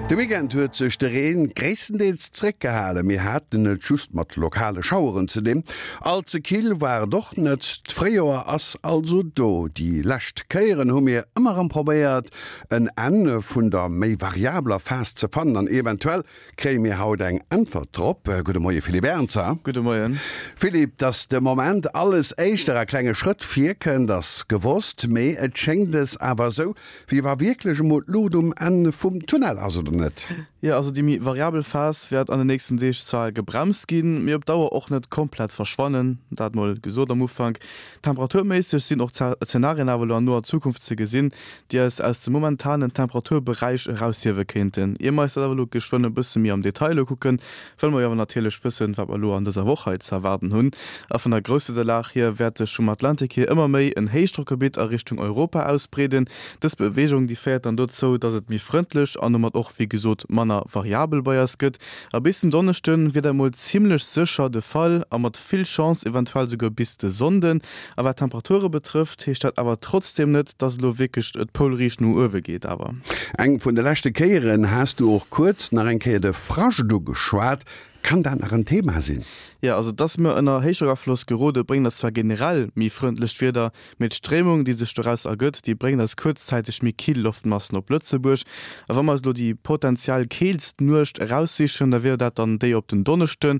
De Weekend huet sech de Reen gréisstendeels zréckgehalen, mir haten et just mat lokale Schaueren ze dinn. All ze kill war et och net, d'Fréijoer ass also do. Déi lescht Kéieren hu mir ëmmer erëm probéiert en Enn vun der méi variabler Phas ze fannen an eventuell Kréie mir haut eng Äntwert drop? Gudde Moie Philippe Ernzer. Gudde Moien. Philippe, datt de Moment alles éischter a klenge Schrëtt virkënnt, ass gewosst. Mee et schéngt es awer esou, wéi wa wierklech emol d'Luucht um Enn vum Tunnel ass, oder net? Jo, also déi méi variabel Phas wäert an den nächsten Deeg zwar gebremst ginn, mee op Dauer och net komplett verschwannen. Dat mol gesot am Ufank. Temperaturméisseg sinn och Zenarien awer elo an noer Zukunft ze gesinn, déi eis aus dem momentanen Temperaturberäich eraushiewe kéinten. Ier mer eis dat awer elo geschwënn e bësse méi am Detail ukucken, wëlle mer jo awer natierlech wëssen, wat mer elo an dëser Woch hei ze erwaarden hunn. A vun der Grousswiederlag hier wäert sech vum Atlantik hier ëmmer méi en Héichdrockgebitt a Richtung Europa ausbreeden. Dës Beweegung, déi féiert dann dozou, dass et méi frëndlech an domat och wéi gesot manner variabel bei eis gëtt. A bis den Donneschde wier dat mol zimmlech sécher de Fall a mat vill Chance eventuell souguer bis de Sonnden. A wat d'Temperature betrëfft, heescht dat awer trotzdeem net, dass elo wierklech d'Poulriicht no uewe geet. Awer. Eng vun de leschte Kéieren has du och kuerz nach eng Kéier de Frascht ugeschwat. Kann dat nach en Thema sinn? Jo, also dass mir ënner Héichdrockafloss gerode bréngt eis zwar generell méi frëndlecht Wieder, mee d'Stréimung, déi sech doraus ergëtt, déi bréngt eis kuerzzäiteg méi kill Loftmassen op Lëtzebuerg. A wa mer eis elo déi potenziell keelst Nuecht eraussichen, da wier dat dann déi op den Donneschden.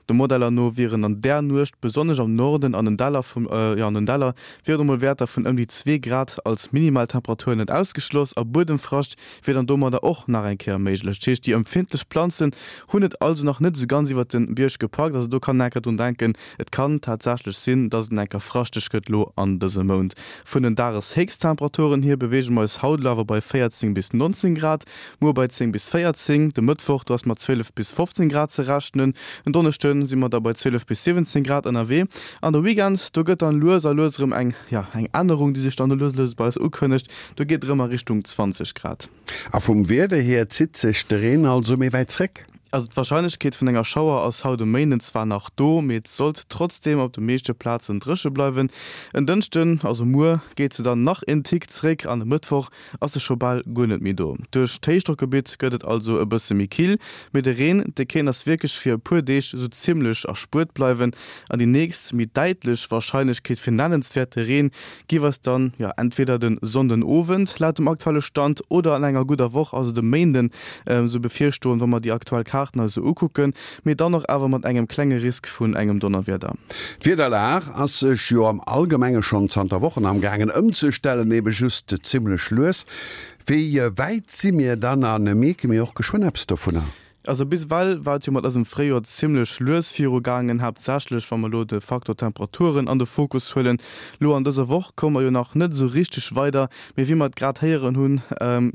De Modeller no wieren an där Nuecht besonnesch am Norden an den Däller vum, jo an den Däller wieren emol Wäerter vun ëm déi zwee Grad als Minimaltemperatur net ausgeschloss a Buedemfrascht wier dann domadder och nach eng Kéier méiglech. Dat heescht, déi empfindlech Planzen hunn et also nach net esou ganz iwwert de Bierg gepackt. Also do kann een enker drun denken, et kann tatsächlech sinn, dass et enker fraschteg gëtt lo an dësem Mount. Vun den Dageshéchsttemperaturen hier beweege mer eis haut elo awer bei 14 bis 19 Grad, Muer bei 10 bis 14, de Mëttwoch do ass mat 12 bis 15 Grad ze rechnen, en Donneschde si mer da bei 12 bis 17 Grad ënnerwee an de Weekend do gëtt dann lues a lues erëm eng, jo, eng Ännerung déi sech dann do lues a lues bei eis ukënnegt, do geet et erëm a Richtung 20 Grad. A vum Wieder hier zitt sech de Reen also méi wäit zréck? Also d'Warscheinlechkeet vun enger Schauer ass haut um Méinden zwar nach do, mee et sollt trotzdeem op de meeschte Plazen dréche bleiwen. En Dënschden, also muer, geet se dann nach en Tick zréck an e Mëttwoch ass se scho bal guer net méi do. Duerch d'Héichdrockgebitt gëtt et also e bësse méi kill, mee de Reen, dee kéint eis wierklech fir e puer Deeg esou zimmlech erspuert bleiwen. An déi nächst méi däitlech Warscheinlechkeet fir nennenswäerte Reen giff eis dann, jo, entweder de Sonndenowend laut dem aktuelle Stand oder an enger gudder Woch, also de Méinden, esou bevirstoen, wa mer déi aktuell Kaarten eis esou ukucken, mee dann och awer mat engem klenge Risk vun engem Donnerwieder. D'Wiederlag ass sech jo am Allgemenge schonn zanter Wochen amgaangen ëmzestellen, ebe just zimmlech lues. Wéi wäit si mir dann a mierke mir och geschwënn eppes dovunner? Also bis ewell war et jo mat eisem Fréijoer zimmlech lues virugaangen, haaptsächlech wa mer elo de Faktor Temperaturen an de Fokus huelen. Lo an dëser Woch komme mer jo nach net esou richteg weider, mee wéi mer et grad héieren hunn,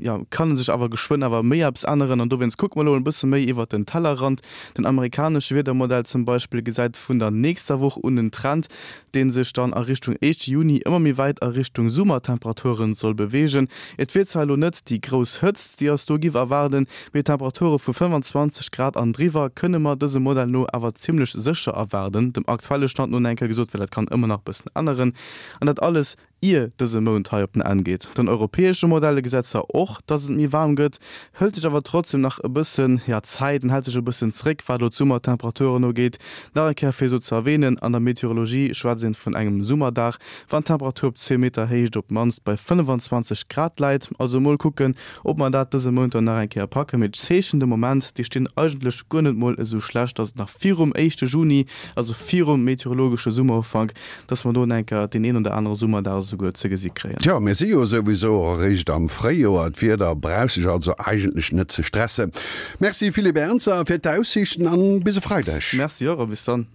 jo, kann sech awer geschwënn awer méi eppes änneren an dowéinst kucke mer elo e bësse méi iwwert den Tellerrand. Den amerikanesche Wiedermodell zum Beispill gesäit vun der nächster Woch un en Trend, dee sech dann a Richtung éischte Juni ëmmer méi wäit a Richtung Summertemperaturen soll beweegen. Et wier zwar elo net déi grouss Hëtzt, déi eis do giff erwaarden, mee Temperature vu 25 Grad an driwwer kënne mer dësem Modell no awer zimmlech sécher erwaarden, dem aktuelle Stand no enker gesot, well dat kann ëmmer nach bëssen änneren. An dat alles Ier dëse Mount hei op den Enn geet. Den europäesche Modelle gesäit zwar och, dass et méi waarm gëtt, hëlt sech awer trotzdem nach e bëssen, ja, Zäit an hält sech e bëssen zréck, wat elo d'Summertemperaturen ugeet. Nach eng Kéier fir esou ze erwähnen, An der Meteorologie schwätzt een vun engem Summerdag, wann d'Temperatur op zwee Meter Héicht op d'mannst bei 25 Grad läit. Also mol kucken, ob mer dat dëse Mount dann nach eng Kéier packen. Mee d'Zeechen de Moment, déi stinn eigentlech guer net mol esou schlecht, dass et nach virum éischte Juni, also virum meteorologesche Summerufank, Dass mer do enker deen een oder anere Summerdag esouguer ze gesi kréien. Tjo, mir si jo souwisou och eréischt am Fréijoer, d'Wieder brauch sech also eigentlech net ze stressen. Merci Philippe Ernzer fir d'Aussiichten an bis e Freideg. Merci och a bis dann.